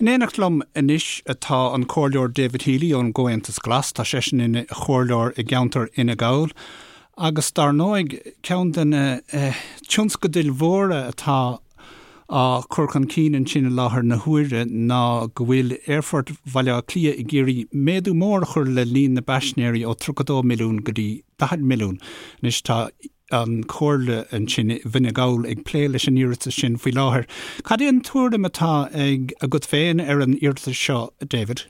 In éineacht liom anois atá an Comhairleoir David Healy ón gComhaontas Glas. Tá seisean ina chomhairleoir i gceantar Fhine Gall agus dar ndóigh ceann de na tionscadail mhóra atá á chur chun cinn ansin i láthair na huaire ná go bhfuil Aerfort Bhaile Átha Cliath ag iarraidh méadú mór a chur le líon na bpaisinéirí ó 32 milliún go dtí 40 milliún. Anois tá an Chomhairle ansin i bhFine Gall ag plé leis an iarratas sin faoi láthair. Cad é an tuairim atá ag agat féin ar an iarratas seo, David?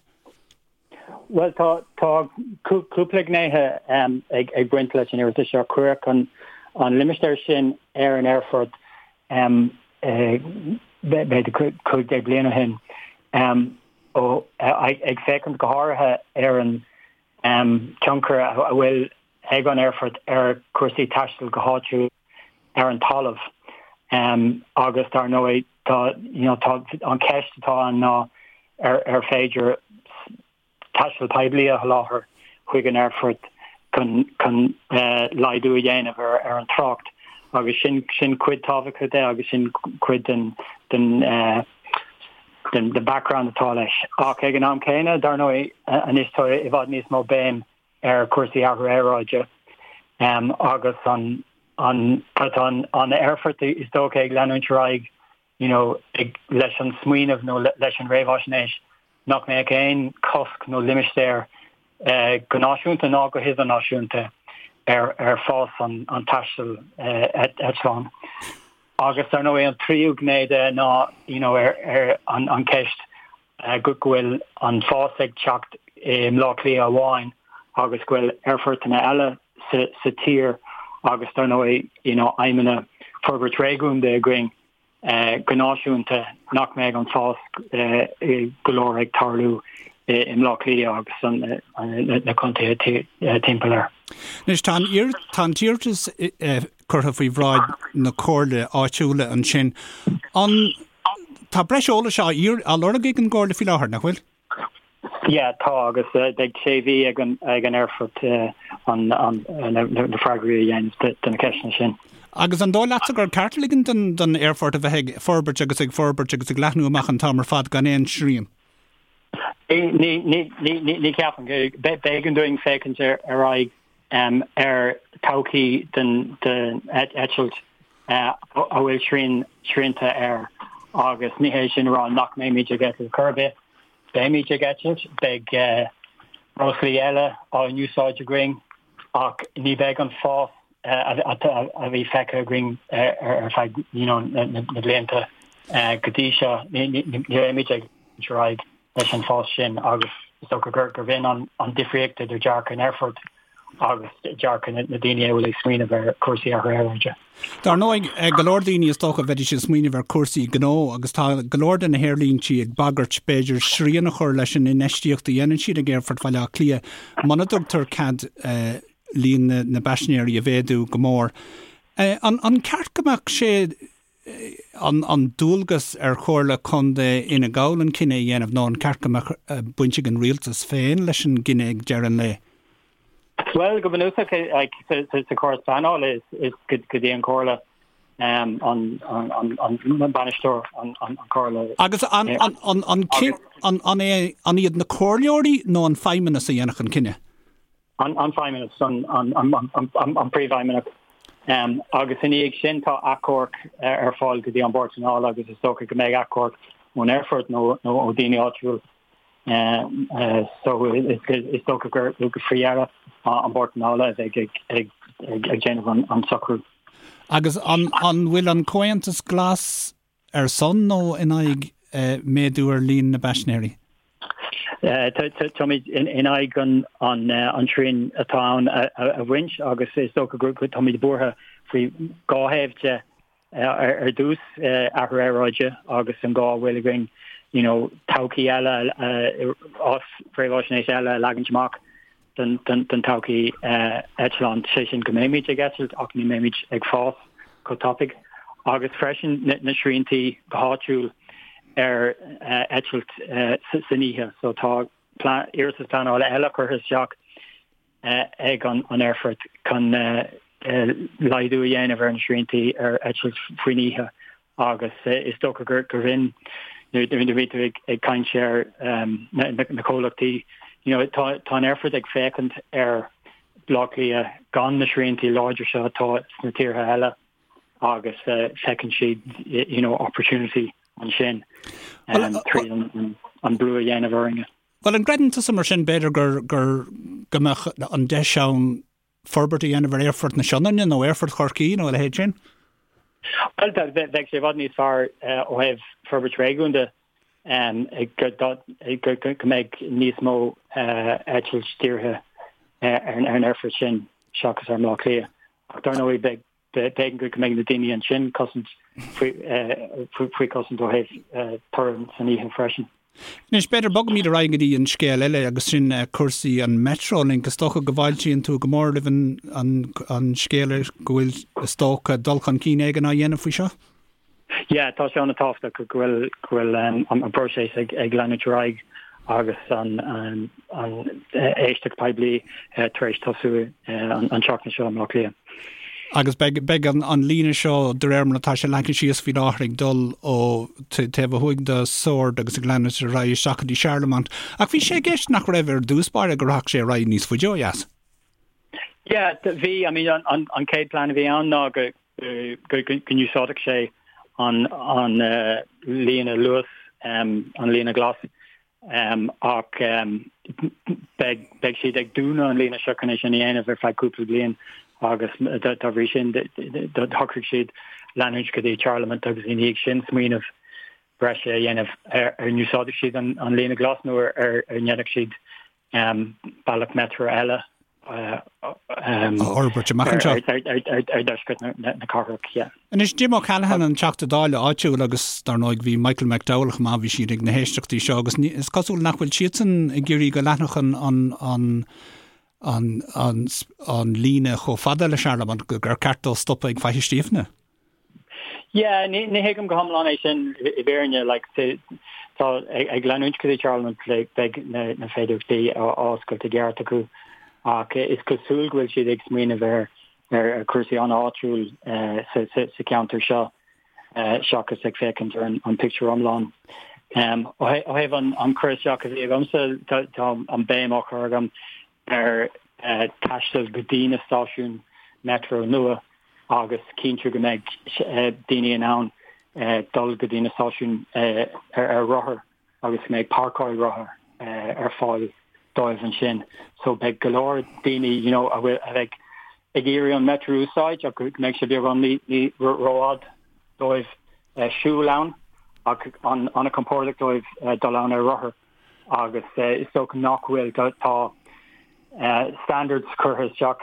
Bhuel, tá tá cúpla gnéithe ag baint leis an iarratas seo. Cuireadh an an limistéar sin ar an aerfort b'fhéidir 15 bliain ó shin, ag féachaint go háirithe ar an tionchar a bhfuil ag an aerfort ar chúrsaí taistil go háitiúil ar an talamh. Agus dar ndóigh tá you know tá an cheist atá ann ná ar ar féidir taisteal poiblí a sholáthar chuig an aerfort chun chun laghdú a dhéanamh ar ar an trácht agus sin sin cuid tábhachtach de agus sin cuid den den den den background atá leis. Ach ag an am céanna, dar ndóigh, anois tá i bhfad níos mó béim ar chúrsaí athrú aeráide agus an an tá an an aerfort is dócha ag leanúint ar aghaidh you know ag leis an smaoineamh nó leis an réamhaisnéis nach mbeadh aon chosc nó limistéar go náisiúnta ná go hidirnáisiúnta ar ar fás an an taistil eitleán. Agus dar ndóigh an tríú gné de ná you know ar ar an an ceist go bhfuil an fás ag teacht i mBleá Cliath amháin agus go bhfuil aerfortanna eile sa tír agus dar ndóigh you know aidhmeanna forbairt réigiúnda againn go náisiúnta nach mbeidh an fás go leor ag tarlú i mBleá Cliath agus na contaetha timpeall air. Anois tá an tá an t-iarratas curtha faoi bhráid na comhairle áitiúla ansin. An tá breis eolais á á lorg ag an gcomhairle faoi láthair, nach bhfuil? Yeah, tá agus beidh sé mhí ag an ag an aerfort an an na freagraí a dhéanamh do na ceisteanna sin. Agus an dóigh leatsa gur ceart ligean don don aerfort a bheith ag forbairt agus ag forbairt agus ag leathnú amach an t-am ar fad gan aon srian? Ní ní ní ní ní ceapaim. B'éigean dúinn féachaint ar ar aghaidh ar todhchaí den eitilt a bhfuil srian srianta air agus ní hé sin a rá nach mbeimid ag eitilt chor ar bith. Beimid ag eitilt, beidh breoslaí eile á n-úsáid againn ach ní bheidh an fás a bhí feicthe againn ar feadh you know na blianta go dtí seo. Ní bheimid ag ar aghaidh leis an bhfás sin agus is dócha gur gur b'in an an difríocht idir dearcadh an aerfoirt agus dearcadh na daoine a bhfuil ag smaoineamh ar chúrsaí athrú aeráide. Dar ndóigh, go leor daoine is dócha bheidís ag smaoineamh ar chúrsaí gnó agus tá go leor de na haerlíntí ag bagairt b'fhéidir srian a chur leis an infheistíocht a dhéanann siad ag Aerfort Bhaile Átha Cliath muna dtugtar cead líon na bpaisinéirí a mhéadú go mór. An ceart go mbeadh sé an dualgas ar Chomhairle Contae Fhine Gall an cinneadh a dhéanamh nó an ceart go mbeadh baint ag an rialtas féin leis an gcinneadh ag deireadh an lae? Bhuel, go bunúsach sa chóras pleanála is go dtí an Chomhairle an bainisteoir an Chomhairle. Agus an iad na comhairleoirí nó an feidhmeannas a dhéanfadh an cinneadh? an feidhmeannas, an príomhfheidhmeannach. Agus ina dhiaidh sin tá achomharc ar fáil go dtí an Bord Pleanála agus is dócha go mbeidh achomharc ón aerfort nó ó daoine áitiúil. So is dócha gur faoi dheireadh an Bord Pleanála a bheidh ag déanamh an socrú. Agus an bhfuil an Comhaontas Glas ar son nó in aghaidh méadú ar líon na bpaisinéirí? Táimid in aghaidh an srian atá ann a bhaint agus is dócha go táimid buartha faoi dhá thaobh de. Ar dtús, athrú aeráide agus an gá a bhfuil againn you know todhchaí eile, réamhaisnéis eile a leagaint amach. don todhchaí eitleán, sé sin go mbeimid ag eitilt ach ní mbeimid ag fás chomh tapaidh, agus freisin na sriantaí go háitiúil ar eitilt san oíche. So tá iarratas pleanála eile curtha isteach ag an aerfort chun laghdú a dhéanamh ar na sriantaí ar eitilt faoin oíche agus is dócha gur b'in. Nuair a bhí tú ag caint ar na comhlachtaí, you know, tá tá an aerfort ag féachaint ar Bhaile Átha Cliath gan na sriantaí láidre seo atá sna tíortha eile agus feiceann siad, you know, opportunity ansin tríd an brú a dhéanamh orainne. Bhuel, an gcreideann tusa mar sin, b'fhéidir, gur, gur, go mbeadh an deis ann forbairt a dhéanamh ar Aerfort na Sionainne nó Aerfort Chorcaí nó a leithéid sin? Bhuel, bheadh sé i bhfad níos fearr ó thaobh forbairt réigiúnda go mbeadh níos mó eitilt dírithe ar an aerfort sin seachas ar Bhaile Átha Cliath. Ach dar ndóigh, beidh B'éigean go mbeidh na daoine ansin cosaint faoi chosaint ó thaobh torann san oíche freisin. Anois, b'fhéidir, bogfaimid ar aghaidh go dtí an scéal eile agus sin cúrsaí an Metrolink. Is dócha go bhfáiltíonn tú go mór roimh an scéal go bhfuil, is dócha, dul chun cinn éigin á dhéanamh faoi seo? Yeah, tá sé an-tábhachtach go bhfuil go bhfuil an próiseas ag ag leanúint ar aghaidh agus an an an éisteacht poiblí tar éis tosú an an tseachtain seo i mBleá Cliath. Agus beidh beidh an an líne seo de réir mar atá sé leagtha síos faoi láthair ag dul ó taobh ó thuaidh de Sord agus ag leanúint ar aghaidh isteach go dtí Charlemont. Ach bhí sé i gceist nach raibh ar dtús báire go rachadh sé ar aghaidh níos faide ó dheas. Yeah, bhí, I mean an an an chéad plean a bhí ann ná go go n-úsáidfeadh sé an líne Luas, an líne ghlas, ach beidh siad ag dúnadh an líne seo chun é sin a dhéanamh ar feadh cúpla bliain agus dá bhrí sin shocraigh siad leanúint go dtí Charlemont agus ina dhiaidh sin smaoineamh breise a dhéanamh ar an úsáidfeadh siad an líne ghlas nó ar ndéanfadh siad bealach metro eile a fhorbairt amach anseo. Ar dheisceart na cathrach, yeah. Anois, Jim O'Callaghan, an Teachta Dála áitiúil agus dar ndóigh bhí Michael McDowell chomh maith, bhí siad ag na héisteachtaí seo agus is cosúil nach bhfuil siadsan ag iarraidh go leanfadh an, an, an, an, an, an líne chomh fada le Charlemont, gur ceart dó stopadh ag Faiche Stíofna. Yeah, ní thuigim go hiomlán é sin i bhfírinne, like, tá ag leanúint go dtí Charlemont beidh na féidearthachtaí á oscailt i gceart acu ach is cosúil go bhfuil siad ag smaoineamh ar ar chúrsaí an-áitiúil sa cheantar seo seachas ag féachaint ar an pictiúr iomlán. Ó thaobh an cur isteach a bhí agamsa, tá an béim á chur agam ar taisteal go dtí na stáisiúin metro nua agus cinntiú go mbeidh daoine in ann dul go dtí na stáisiúin ar rothar agus go mbeidh páirceáil rothar ar fáil dóibh ansin. So beidh go leor daoine you know a bhfuil a bheidh ag iarraidh an metro a úsáid ach go mbeidh sé beagán ní rófhada dóibh siúl ann ach an-chompordach dóibh dul ann ar rothar. agus is dócha nach bhfuil, tá standards curtha isteach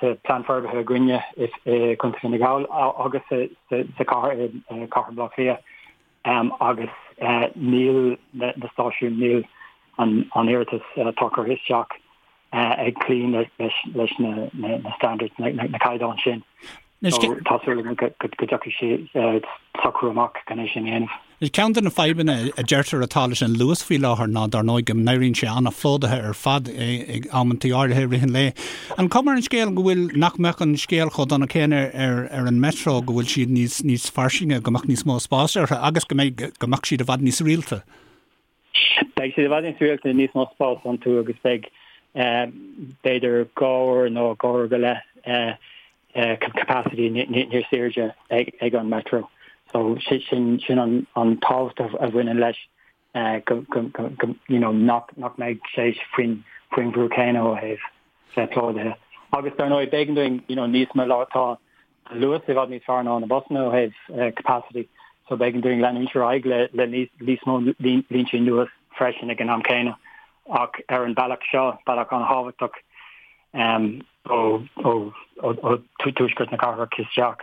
sa Plean Forbartha againne i gContae Fhine Gall agus sa chathair, i Cathair Bhaile Átha Cliath agus níl na stáisiúin, níl an iarratas atá curtha isteach ag cloí leis na standards, na caighdeáin sin. So tá súil agam go dtiocfaidh sé socrú amach chun é sin a dhéanamh. Ceann de na fadhbanna a deirtear atá leis an Luas faoi láthair ná dar ndóigh go n-éiríonn sé an-phlódaithe ar fad ag amantaí áirithe i rith an lae. An cuma ar an scéal go bhfuil, nach mbeadh an scéal chomh dona céanna ar ar an Metro, go bhfuil siad níos níos fairsinge, go mbeadh níos mó spáis orthu agus go mbeidh go mbeadh siad i bhfad níos rialta? Beidh siad i bhfad níos rialta, níos mó spás iontu agus beidh b'fhéidir 2 uair nó 2 uair go leith capacity níos airde ag an Metro. So sin sin an an tábhacht a bhaineann leis go go you know nach nach mbeidh sé faoin faoin bhrú céanna ó thaobh bheith plódaithe. Agus dar ndóigh b'éigean dúinn you know níos mó tá an Luas i bhfad níos fearr ná na busanna ó thaobh capacity so b'éigean dúinn leanúint ar aghaidh le le níos mó línte nua freisin ag an am céanna ach ar an bealach seo, bealach an-thábhachtach ó ó ó tuaisceart na cathrach isteach,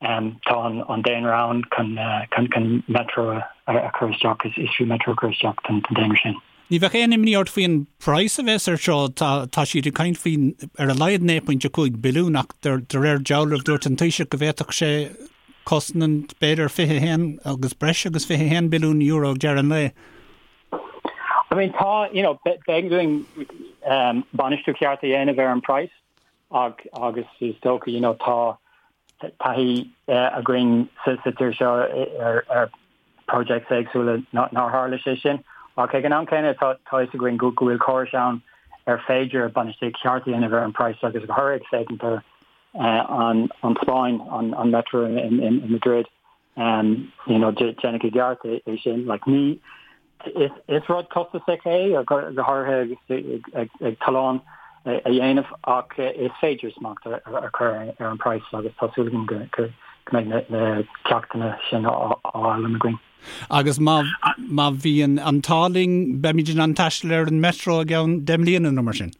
tá an daonra ann chun chun metro a chur isteach, is fiú metro a chur isteach don daonra sin. Ní bheadh aon imní ort faoin praghas a bheas ar seo? Tá tá siad ag caint faoi ar a laghad 9.5 billiún ach de réir dealraimh dúirt an Taoiseach go bhféadfadh sé cosnant b'fhéidir 21 agus breis agus 21 billiún euro ag deireadh an lae. I mean tá, you know, b'éigean dúinn bainistiú ceart a dhéanamh ar an praghas ach agus is dócha, you know, tá taithí againn sa tír seo ar ar. projects éagsúla nár tharla sé sin. Ach ag an am céanna tá a fhios againn go bhfuil córais ann ar féidir bainistíocht cheart a dhéanamh ar an praghas agus go háirithe féachaint ar an Spáinn, an metro in Madrid, you know, déanadh i gceart é sin. Like, ní, is rud costasach é, go háirithe agus ag tollán a dhéanamh, ach is féidir smacht a chur ar an praghas agus tá súil agam go mbeidh na ceachtanna sin á fhoghlaim againn. Agus má má bhíonn an t-ádh linn, beimid in ann taisteal ar an Metro i gceann 10 mbliana nó mar sin.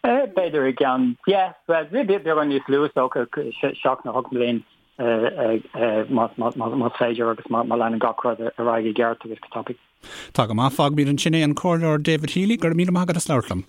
B'fhéidir i gceann, yeah, well, beagán níos lú is dócha, 7 nó 8 mbliain más féidir agus má leanann gach rud ar aghaidh i gceart agus go tapaidh. Tá go maith. Fágfaimid ansin é an Comhairleoir David Healy, go raibh míle maith agat as labhairt liom.